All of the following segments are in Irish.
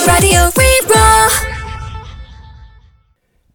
Raidió Rí-Rá.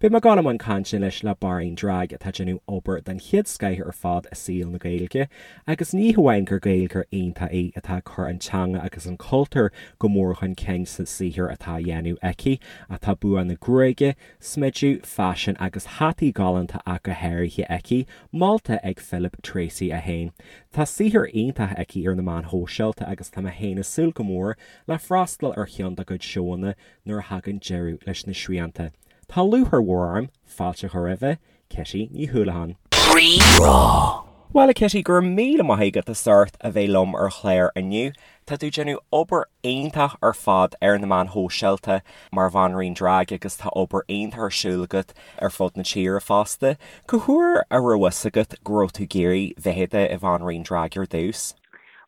Beidh mé ag dul i mbun cainte anois le banríon drag atá ag déanamh obair den chéad scoith ar fad i saol na Gaeilge agus ní hamháin gur Gaeilgeoir iontach í atá ag cur an teanga agus an cultúr go mór chun cinn sa saothar atá á dhéanamh aici ach tá bua na gruaige, smideadh, faisean agus hataí galánta ach go háirithe aici, molta ag Philip Treacy é féin. Tá saothar iontach aici ar na meáin shóisialta agus tá mé féin ag súil go mór le freastal ar cheann dá cuid seóanna nuair a thagann deireadh leis na srianta. Tá lúcháir mhór orm fáilte a chur roimhe, Kitty Ní Houlihan. Rí-Rá. Bhuel, a Kitty, go raibh míle maith agat as ucht a bheith liom ar an chlár inniu. Tá tú ag déanamh obair iontach ar fad ar na meáin shóisialta mar bhanríon drag agus tá obair iontach ar siúl agat ar fud na tíre fosta. Cá huair a raibh fhios agat go raibh tú ag iarraidh bheith i do bhanríon drag ar dtús?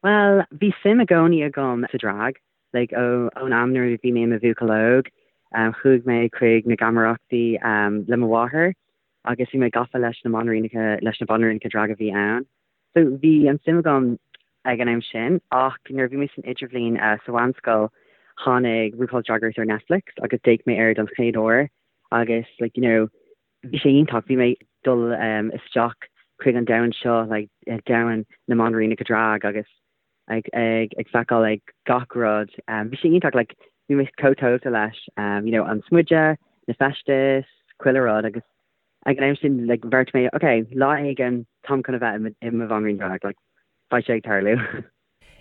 Bhuel, bhí suim i gcónaí agam sa drag, like ón am nuair a bhí mé i mo bhuachaill óg. Chuaigh mé chuig na geamaireachtaí le mo mháthair agus bhí mé gafa leis na mbanríonacha, leis na banríonacha drag a bhí ann. So bhí an suim agam ag an am sin ach nuair a bhí mé san idirbhliain sa mheánscoil tháinig RuPaul's Drag Race ar Netflix agus d'fhéach mé air don chéad uair agus like you know bhí sé iontach, bhí mé ag dul isteach chuig an domhan seo like domhan na mbanríonacha drag agus ag ag ag feiceáil ag gach rud. Bhí sé iontach like bhí mé chomh tógtha leis you know an smideadh, na feistis, chuile rud agus ag an am sin like bheartaigh mé ok lá éigin táim chun a bheith i mo bhanríon drag like beidh sé ag tarlú.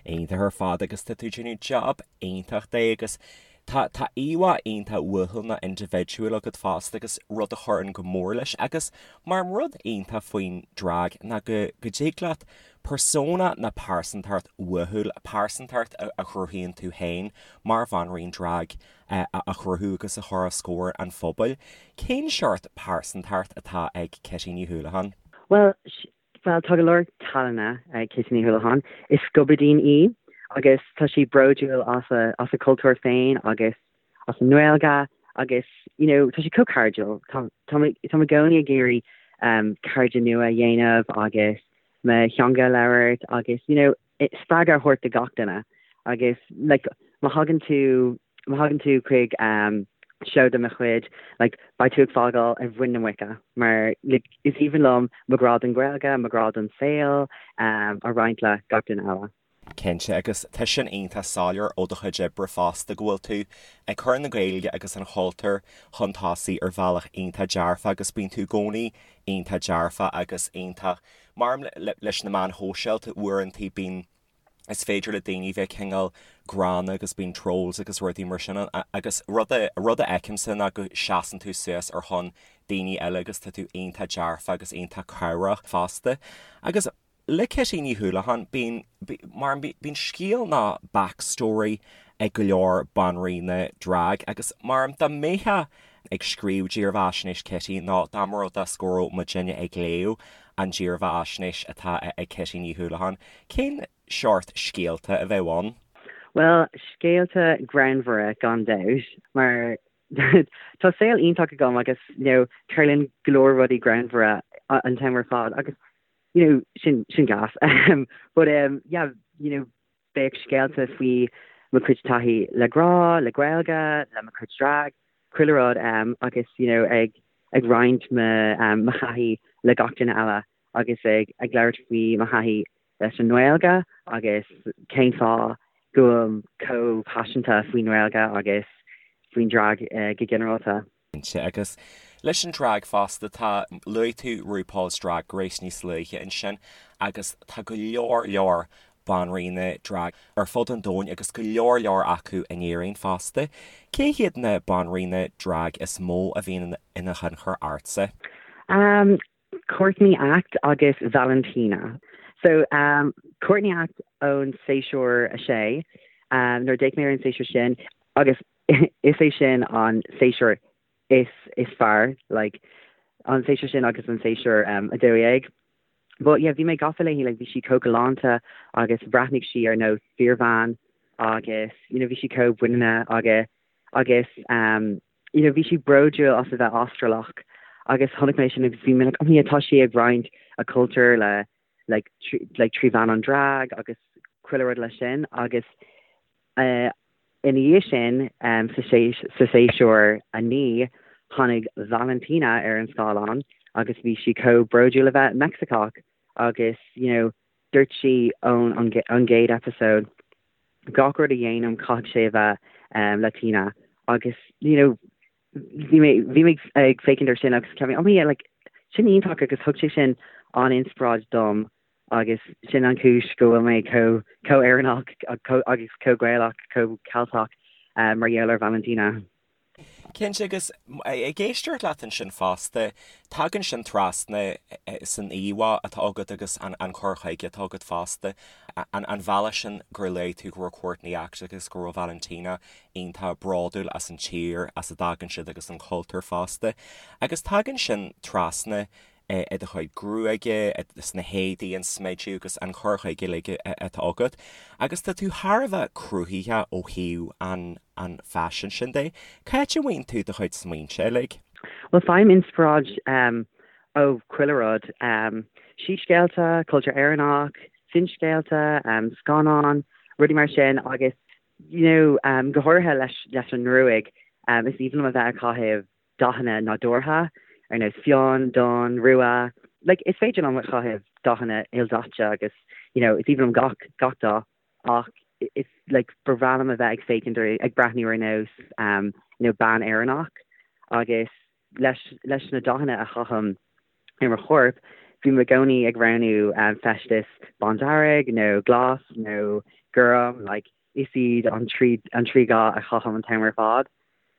Iontach ar fad agus tá tú ag déanamh job iontach de agus tá tá íomhá iontach uathúil nó indibhidiúil agat fosta agus rud a chuireann go mór leis agus mar rud iontach faoin drag ná go go dtig leat persona nó pearsantacht uathúil, pearsantacht a chruthaíonn tú féin mar bhanríon drag a chruthú agus a chur os comhair an phobail. Cén seort pearsantacht atá ag Kitty Ní Houlihan? Bhuel, bhuel, tá go leor tallanna ag Kitty Ní Houlihan. Is scubaidín í agus tá sí bródúil as a, as a cultúr féin agus as an nGaeilge agus, you know, tá sí chomh cairdiúil. Tá, tá mé, tá mé i gcónaí ag iarraidh um, cairde nua a dhéanamh agus mo theanga a labhairt agus, you know, spreagadh a thabhairt do gach duine agus like má thagann tú má thagann tú chuig um, seó de mo chuid like beidh tú ag fágáil ar mhuin na muice mar like is aoibhinn liom mo ghrá don Ghaeilge, mo ghrá don saol um, a roinnt le gach duine eile. Cinnte, agus tá sin iontach soiléir ó do chuid oibre fosta go bhfuil tú ag cur na Gaeilge agus an chultúir chun tosaigh ar bhealach iontach dearfach agus bíonn tú i gcónaí iontach dearfach agus iontach mar leis na meáin shóisialta uaireanta bíonn is féidir le daoine bheith cineál gránna agus bíonn trolls agus rudaí mar sin ann agus rud a rud a fheicimse ná go seasann tú suas ar shon daoine eile agus tá tú iontach dearfach agus iontach cabhrach fosta agus Le Kitty Ní Houlihan, bíonn, mar bíonn scéal nó backstory ag go leor banríona drag agus mar dá mbeifeá ag scríobh dírbheathaisnéis Kitty nó dá mba rud é go raibh muidinne ag léamh an dírbheathaisnéis atá ag Kitty Ní Houlihan, cén seort scéalta a bheadh ann? Bhuel, scéalta greannmhara gan dabht, mar tá saol iontach agam agus you know tarlaíonn go leor rudaí greannmhara an t-am ar fad agus you know, sin, sin gas. But um, yeah, you know, bheadh scéalta faoi mo chuid taithí le grá, le Gaeilge, le mo chuid drag, chuile rud um, agus you know, ag, ag roinnt mo, um, mo thaithí le gach duine eile agus ag, ag labhairt faoi mo thaithí leis an nGaeilge agus cén fáth go bhfuilim chomh paiseanta faoin nGaeilge agus faoin drag uh, go ginearálta. Cinnte, agus leis an drag fosta, tá, luaigh tú RuPaul's Drag Race níos luaithe ansin agus tá go leor leor banríona drag ar fud an domhain agus go leor leor acu in Éirinn fosta. Cé hiad na banríona drag is mó a bhíonn ina thionchar ortsa? Um, Courtney Act agus Valentina. So, um, Courtney Act ón séasúr 6, um, nuair a d'fhéach mé ar an séasúr sin agus Is é sin an séasúr is is fearr, like, an séasúr sin agus an séasúr um, 12. But yeah, bhí mé gafa léi, like, bhí sí chomh galánta agus bhreathnaigh sí ar nós fíorbhean agus, you know, bhí sí chomh muiníneach agus agus um, you know, bhí sí bródúil as a bheith Astrálach agus chonaic mé sin agus bhí mé like, oh yeah, tá sí ag roinnt a cultúr le like, like trí mheán an drag agus chuile rud leis sin agus uh, Ina dhiaidh sin, sa séasúr 9, tháinig Valentina ar an scáileán agus bhí sí chomh bródúil a bheith Meicsiceach agus you know dúirt sí ón an gcéad episode gach rud a dhéanaim caithfidh sé a bheith Latina agus you know bhí mé bhí mé ag féachaint ar sin agus cheap mé oh yeah like sin iontach agus thug sé sin an-inspioráid dom agus sin an chúis go bhfuil mé chomh chomh Éireannach agus chomh Gaelach chomh Ceilteach mar gheall ar Valentina. Cinnte, agus ag éisteacht leat ansin fosta, tagann sin trasna san íomhá atá agat agus an cur chuige atá agat fosta, an bhealach sin gur luaigh tú go raibh Courtney Act agus go raibh Valentina iontach bródúil as an tír as a dtagann siad agus an cultúr fosta. Agus tagann sin trasna i do chuid gruaige, sna héadaí, an smideadh agus an cur chuige uilig atá agat. Agus tá tú thar a bheith cruthaitheach ó thaobh an an faisin sin de. Cá háit a bhfaigheann tú do chuid smaointe uilig? Bhuel, faighim inspioráid ó chuile rud. Síscéalta, cultúr Éireannach, finscéalta, scannáin, rudaí mar sin agus you know go háirithe leis leis an ngruaig, is aoibhinn liom a bheith ag caitheamh dathanna nádúrtha, ar nós fionn, donn, rua. Like, is féidir liom a chaitheamh dathanna ildaite agus, you know, is aoibhinn liom gach, gach dath ach is, like, ba bhreá liom a bheith ag féachaint ar, ag breathnú ar nós, um, you know, bean Éireannach agus leis, leis na dathanna a chaithim ar mo chorp, bím i gcónaí ag roghnú um, feisteas bándearg nó glas nó gorm, like, is iad an trí an trí dhath a chaithim an t-am ar fad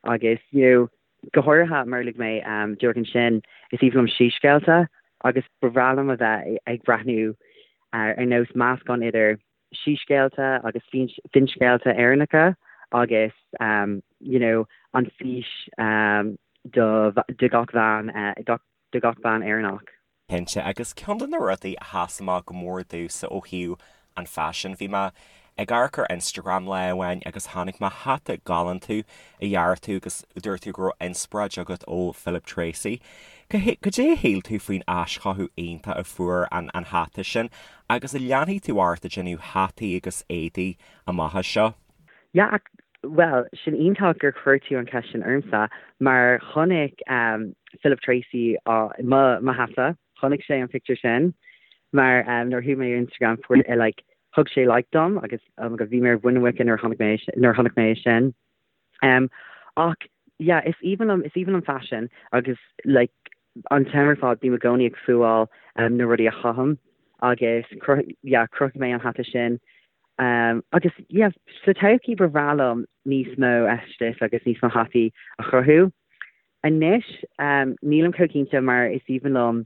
agus you know go háirithe mar a luaigh mé díreach ansin is aoibhinn liom síscéalta agus ba bhreá liom a bheith ag breathnú ar nós meascán idir síscéalta agus finscéalta Éireannacha agus you know an fís do do gach bhean do gach bean Éireannach. Cinnte, agus ceann de na rudaí a sheas amach go mór domhsa ó thaobh an faisin, bhí mé ag amharc ar Instagram lá amháin agus chonaic mé hata galánta a dhear tú agus dúirt tú go raibh inspioráid agat ó Philip Treacy. Cad é a shíl tú faoin aischothú iontach a fuair an hata sin agus an leanfaidh tú ort ag déanamh hataí agus éadaí amach as seo? Yeah, bhuel, sin iontach gur chuir tú an cheist sin ormsa, mar chonaic Philip Treacy mo mo hata, chonaic sé an pictiúr sin, mar nuair a chuaigh mé ar Instagram fuair like thug sé like dom agus oh my god bhí mé ar mhuin na muice nuair a chonaic mé nuair a chonaic mé é sin. Ach yeah, is aoibhinn liom is aoibhinn liom faisean agus like an t-am ar fad bím i gcónaí ag fuáil na rudaí a chaithim agus yeah chruthaigh mé an hata sin agus yeah sa todhchaí ba bhreá liom níos mó feisteas agus níos mó hataí a chruthú. Anois nílim chomh cinnte mar is aoibhinn liom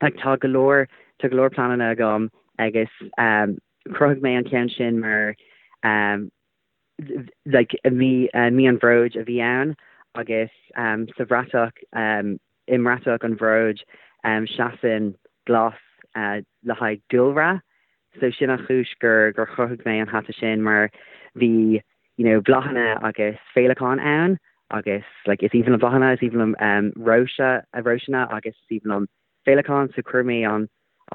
like tá go leor tá go leor pleananna agam agus chruthaigh mé an ceann sin mar like mí mí an bhróid a bhí ann agus sa bhratach i mbratach an bhróid seasann glas le haghaidh dúlra so sin an chúis gur gur chruthaigh mé an hata sin mar bhí you know bláthanna agus féileacáin ann agus like is aoibhinn liom bláthanna is aoibhinn liom róise róiseanna agus is aoibhinn liom féileacáin so chuir mé an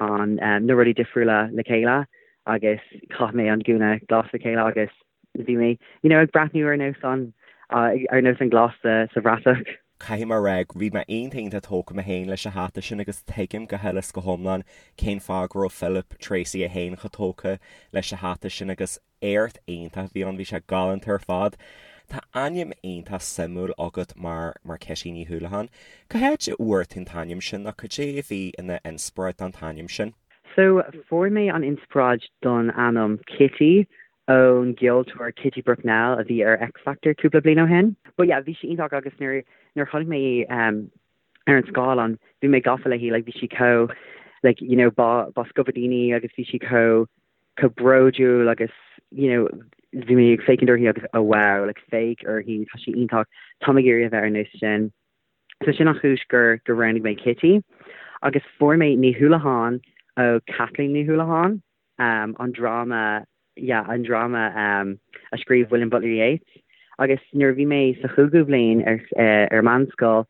an na rudaí difriúla le chéile agus chaith mé an gúna glas le chéile agus bhí mé you know ag breathnú ar nós an ar nós an glas sa sa bhratach. Caithfidh mé a rá bhí mé iontach iontach tógtha mé féin leis an hata sin agus tuigim go huile is go hiomlán cén fáth go raibh Philip Treacy é féin chomh tógtha leis an hata sin agus éacht iontach a bhí ann, bhí sé galánta ar fad. Tá ainm iontach suimiúil agat mar mar Kitty Ní Houlihan. Cá háit a bhfuair tú an t-ainm sin nó cad é a bhí ina inspioráid don t-ainm sin? So, fuair mé an inspioráid don ainm Kitty ón gceoltóir Kitty Brucknell a bhí ar X Factor cúpla bliain ó shin. But yeah, bhí sí iontach agus nuair nuair a chonaic mé í ar an scáileán, bhí mé gafa léi, like bhí sí chomh like you know ba ba scubaidín í agus bhí sí chomh chomh bródúil agus you know bhí mé ag féachaint uirthi agus oh wow like féach uirthi tá sí iontach tá mé ag iarraidh a bheith ar nós sin. So sin an chúis gur gur roghnaigh mé Kitty agus fuair mé Ní Houlihan ó Kathleen Ní Houlihan um, an dráma yeah, an dráma um, a scríobh William Butler Yeats agus nuair a bhí mé sa chúigiú bhliain ar, uh, ar meánscoil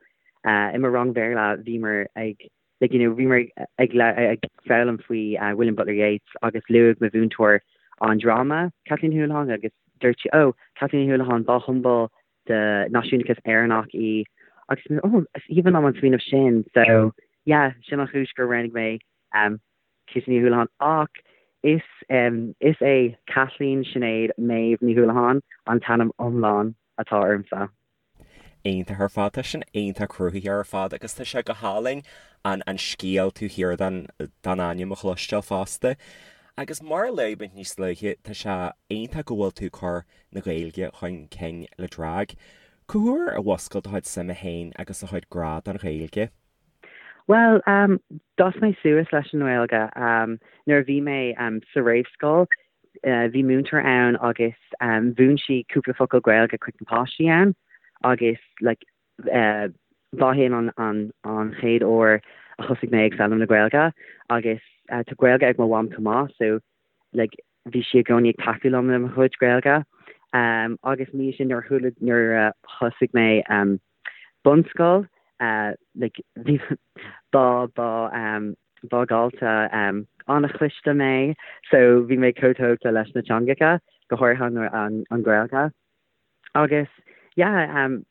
uh, i mo rang Bhéarla bhíomar ag like you know bhíomar ag ag foghlaim faoi William Butler Yeats agus luaigh mo mhúinteoir an dráma Kathleen Houlihan agus. Dúirt sí, Oh, Kathleen Ní Houlihan, ba shiombail de náisiúnachas Éireannach í. Agus mé, oh, is aoibhinn liom an smaoineamh sin. So, yeah, sin an chúis gur roghnaigh mé um, Kitty Ní Houlihan. Ach is, um, is é Kathleen Sinéad Méabh Ní Houlihan an t-ainm iomlán atá ormsa. Iontach ar fad. Tá sin iontach cruthaitheach ar fad agus tá sé go hálainn an an scéal taobh thiar den den ainm a chloisteáil fosta. Agus mar a luaigh muid níos luaithe, tá sé iontach go bhfuil tú ag cur na Gaeilge chun cinn le drag. Cá huair a mhúscail do chuid suime féin agus do chuid grá don Ghaeilge? Bhuel, d'fhás mé suas leis an nGaeilge. Nuair a bhí mé sa réamhscoil, bhí múinteoir ann agus mhúin sí cúpla focal Gaeilge chuig na páistí ann agus like ba shin an an chéad uair a thosaigh mé ag foghlaim na Gaeilge agus tá Gaeilge ag mo mham chomh maith so like bhí sí i gcónaí ag tacú liom le mo chuid Gaeilge. Agus ina dhiaidh sin nuair a chuala nuair a thosaigh mé bunscoil like bhí ba ba ba dhalta an-chliste mé so bhí mé chomh tógtha leis na teangacha, go háirithe an an Ghaeilge. Agus yeah um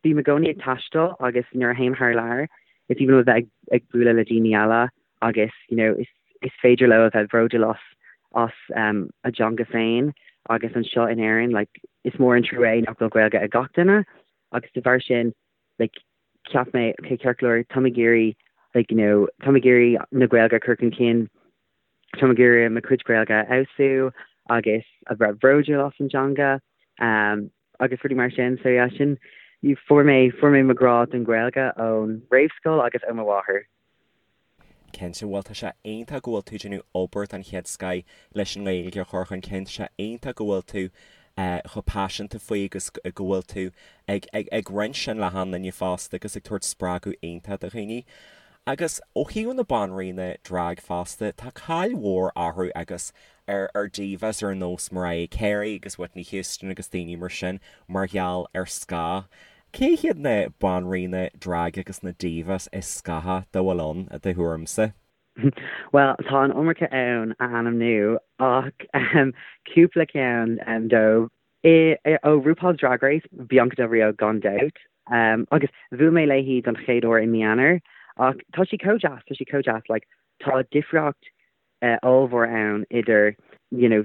bím i gcónaí ag taisteal agus nuair a théim thar lear is aoibhinn liom a bheith ag ag bualadh le daoine eile agus you know is is féidir leo a bheith bródúil as as um a dteanga féin agus anseo in Éirinn like is mór an trua é nach bhfuil Gaeilge ag gach duine agus de bharr sin like cheap mé okay ceart go leor táim ag iarraidh like you know táim ag iarraidh na Gaeilge a chur chun cinn Táim ag iarraidh mo chuid Gaeilge a fheabhsú agus a bheith bródúil as an dteanga agus rudaí mar sin. So yeah, sin, fuair mé, fuair mé mo ghrá don Ghaeilge ón réamhscoil agus ó mo mháthair. Cinnte, bhuel tá sé iontach go bhfuil tú ag déanamh obair den chéad scoith leis an nGaeilge a chur chun cinn, tá sé iontach go bhfuil tú chomh paiseanta faoi agus go bhfuil tú ag, ag, ag roinnt sin le achan duine fosta agus ag tabhairt spreagadh iontach do dhaoine. Agus ó thaobh na banríona drag fosta, tá cáil mhór orthu agus ar ar divas ar nós Mariah Carey agus Whitney Houston agus daoine mar sin mar gheall ar scáth. Cé hiad na banríona drag agus na divas is scáthaí dá bhfuil ann, i do thuairimse? Bhuel, tá an iomarca ann a ainmniú ach cúpla ceann dóibh. Ó RuPaul's Drag Race, Bianca Del Rio gan dabht. Agus bhuail mé léi don chéad uair i mí Eanáir ach tá sí chomh deas, tá sí chomh deas, like tá difríocht ollmhór ann idir you know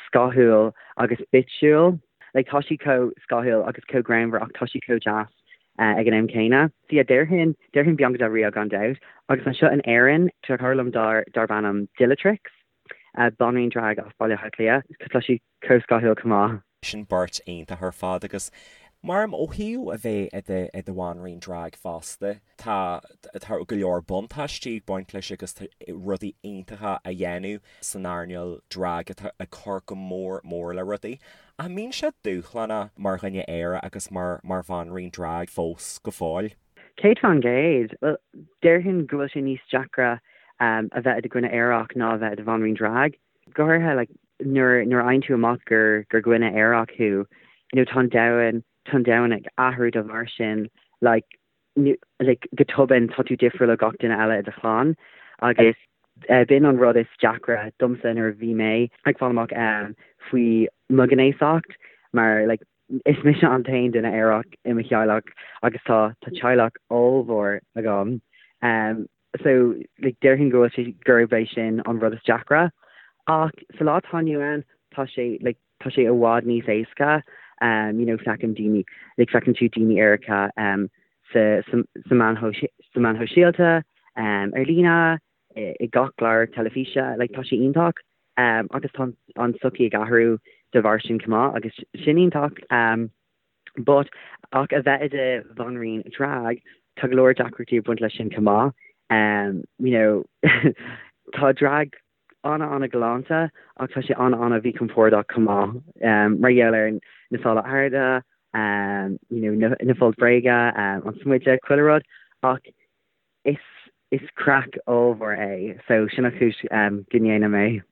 scáthúil agus bitchúil. Like tá sí chomh scáthúil agus chomh greannmhar ach tá sí chomh deas ag an am céanna. So yeah, déarfainn, déarfainn Bianca Del Rio gan dabht. Agus anseo in Éirinn, tá cara liom darb ainm Dillatrix, banríon drag as Baile Átha Cliath. Tá sí chomh scáthúil chomh maith. Sin beirt iontach ar fad agus mar ó thaobh a bheith i do i do bhanríon drag fosta tá tá go leor buntáistí ag baint leis agus tá rudaí iontacha á dhéanamh san earnáil drag atá ag cur go mór mór le rudaí. Ach an mbíonn sé dúshlánach mar dhuine aerach agus mar mar bhanríon drag fós go fóill? 100%. Bhuel, déarfainn go bhfuil sé níos deacra a bheith i do dhuine aerach ná a bheith i do bhanríon drag. Go háirithe like nuair nuair a fhaigheann tú amach gur gur dhuine aerach thú, you know tá an domhan tá an domhan ag athrú dá bharr sin like like go tobann tá tú difriúil ó gach duine eile i do chlann agus eh, b'in an rud is deacra domsa nuair a bhí mé ag fáil amach um, faoi mo ghnéasacht mar like is mise an t-aon duine aerach i mo theaghlach agus tá tá teaghlach ollmhór agam um, so like déarfainn go bhfuil sé gurb é sin an rud is deacra. Ach sa lá atá inniu ann tá sé like tá sé i bhfad níos éasca um you know feicim daoine like feiceann tú daoine aeracha um sa sa sa meáin sa meáin shóisialta um ar líne i i gach clár teilifíse like tá sé iontach um agus tá an tsochaí ag athrú de bharr sin chomh maith agus sin iontach um But, ach a bheith i do bhanríon drag, tá go leor deacrachtaí ag baint leis sin chomh maith. Um, you know, tá drag ana-ana-ghalánta ach tá sé ana-ana-mhíchompordach chomh maith um, mar gheall ar na sála arda, um, you know, na, na foilt bhréige, um, an smideadh, chuile rud, ach is, is craic ollmhór é, so sin an chúis um, go ndéanaim é.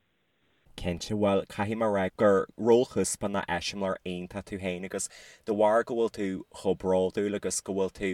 Cinnte, bhuel, caithfidh mé a rá gur rólchuspáin ná eiseamláir iontach tú féin agus de bharr go bhfuil tú chomh bródúil agus go bhfuil tú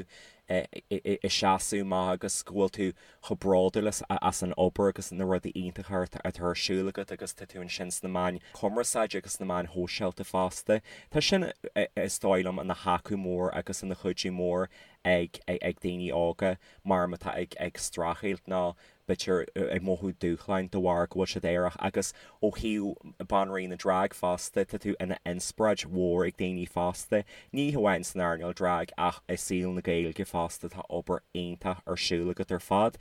I seasamh amach agus go bhfuil tú chomh bródúil as an obair agus na rudaí iontacha atá ar siúl agat agus tá tú ansin sna meáin chumarsáide agus sna meáin shóisialta fosta. Tá sin, is dóigh liom, ina thaca mór agus ina chuidiú mór ag daoine óga mar atá ag streachailt nó b'fhéidir ag mothú dúshláin de bharr go bhfuil siad aerach agus ó thaobh banríon na drag fosta, tá tú ina inspioráid mhór ag daoine fosta, ní hamháin san earnáil drag ach i saol na Gaeilge fosta, tá obair iontach ar siúl agat ar fad.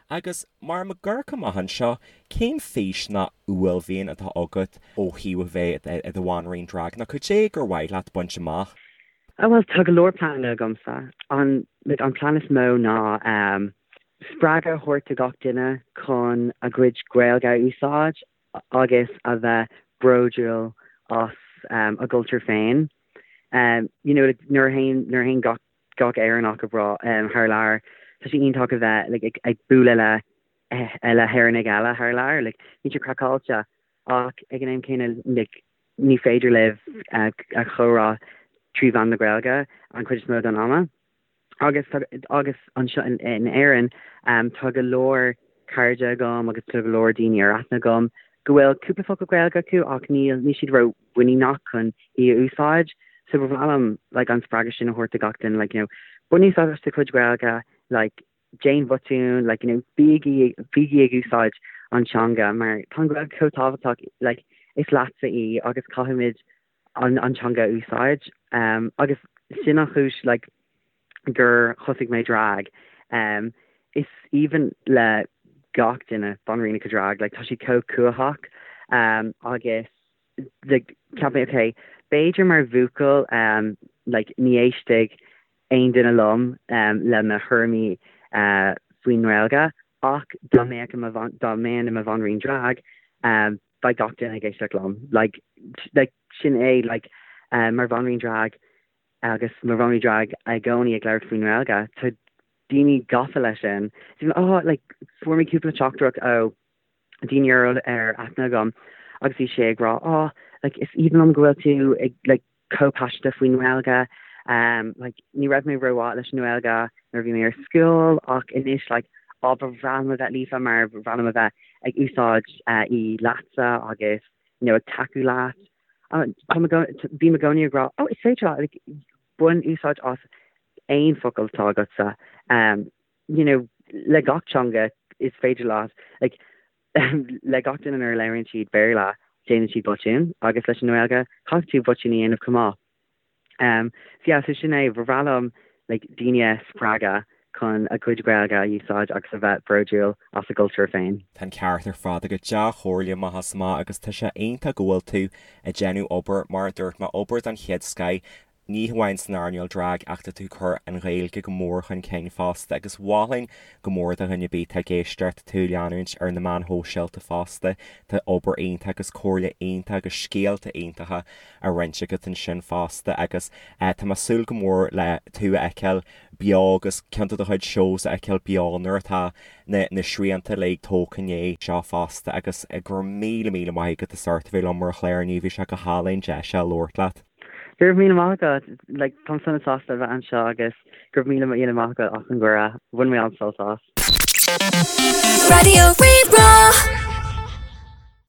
Agus mar muid ag amharc amach anseo, cén fís nó uaillmhian atá agat ó thaobh a bheith i do bhanríon drag nó cad é gur mhaith leat baint amach? Oh bhuel tá go leor pleananna agamsa. An like an plean is mó ná ehm spreagadh a thabhairt do gach duine chun a gcuid Gaeilge a úsáid agus a bheith bródúil as ehm a gcultúr féin. Ehm you know like nuair a théann nuair a théann gach gach Éireannach abroad ehm thar lear tá sé iontach a bheith like ag ag bualadh le eh le hÉireannaigh eile thar lear like bíonn sé craiceáilte ach ag an am céanna like ní féidir libh a chomhrá trí mheán na Gaeilge an chuid is mó den ama. Agus agus anseo in Éirinn tá go leor cairde agam agus tá go leor daoine ar aithne agam go bhfuil cúpla focal Gaeilge acu ach níl níl siad ró-mhuiníneach chun í a úsáid. So ba mhaith liom like an spreagadh sin a thabhairt do gach duine like you know bain úsáid as do chuid Gaeilge like déan botún, like, you know, bígí, bígí ag úsáid an teanga mar tá an Ghaeilge chomh tábhachtach, like, is leatsa í agus caithfimid an, an teanga a úsáid. Um, agus sin an chúis, like, gur thosaigh mé drag. Um, is aoibhinn le gach duine banríonacha drag, like, tá siad chomh cumhachtach, um, agus like, cheap mé, okay, b'fhéidir mar bhuachaill, um, like, ní éistfidh aon duine liom le mo thuairimí faoin nGaeilge ach dá mbeadh i mo dá mbeinn i mo bhanríon drag beidh gach duine ag éisteacht liom. Like like sin é like mar bhanríon drag agus mar bhanríon drag i gcónaí ag labhairt faoin nGaeilge tá daoine gafa leis sin. Oh like fuair mé cúpla teachtaireacht ó daoine ar ar aithne agam agus bhí sé ag rá oh like is aoibhinn liom go bhfuil tú ag like chomh paiseanta faoin nGaeilge um like ní raibh mé rómhaith leis an nGaeilge nuair a bhí mé ar scoil ach anois like á ba bhreá liom a bheith líofa mar ba bhreá liom a bheith ag úsáid uh, í leatsa agus you know, ag tacú leat. Tá mé bím i gcónaí ag rá oh is féidir leat like, bain úsáid as aon focal atá agatsa um, you know, le gach teanga is féidir leat like, le gach duine nuair a labhraíonn siad Béarla déanann siad botún agus leis an nGaeilge caithfidh tú botún a dhéanamh chomh maith. Um, so yeah, so sin é, ba bhreá liom like, daoine a spreagadh chun a gcuid Gaeilge a úsáid agus a bheith bródúil as a gcultúr féin. Tá an ceart ar fad agat, dea-chomhairle amach is amach agus tá sé iontach go bhfuil tú ag déanamh obair, mar a dúirt mé, obair den chéad scoith. Ní hamháin san earnáil drag ach tá tú ag cur an Ghaeilge go mór chun cinn fosta agus mholfainn go mór do dhuine ar bith atá ag éisteacht tú a leanúint ar na meáin shóisialta fosta. Tá obair iontach agus comhairle iontach agus scéalta iontacha á roinnt agat ansin fosta agus tá mé ag súil go mór le tú a fheiceáil beo agus ceann de do chuid shows a fheiceáil beo nuair atá na na srianta uilig tógtha i ndiaidh seo fosta agus go raibh míle míle maith agat as ucht a bheith liom ar an chlár inniu, bhí sé go hálainn deis a labhairt leat. Go raibh míle maith agat. Like, táim sona sásta a bheith anseo agus go raibh míle míle maith agat as an gcuireadh. Bhain mé an-sult as. Raidió Rí-Rá.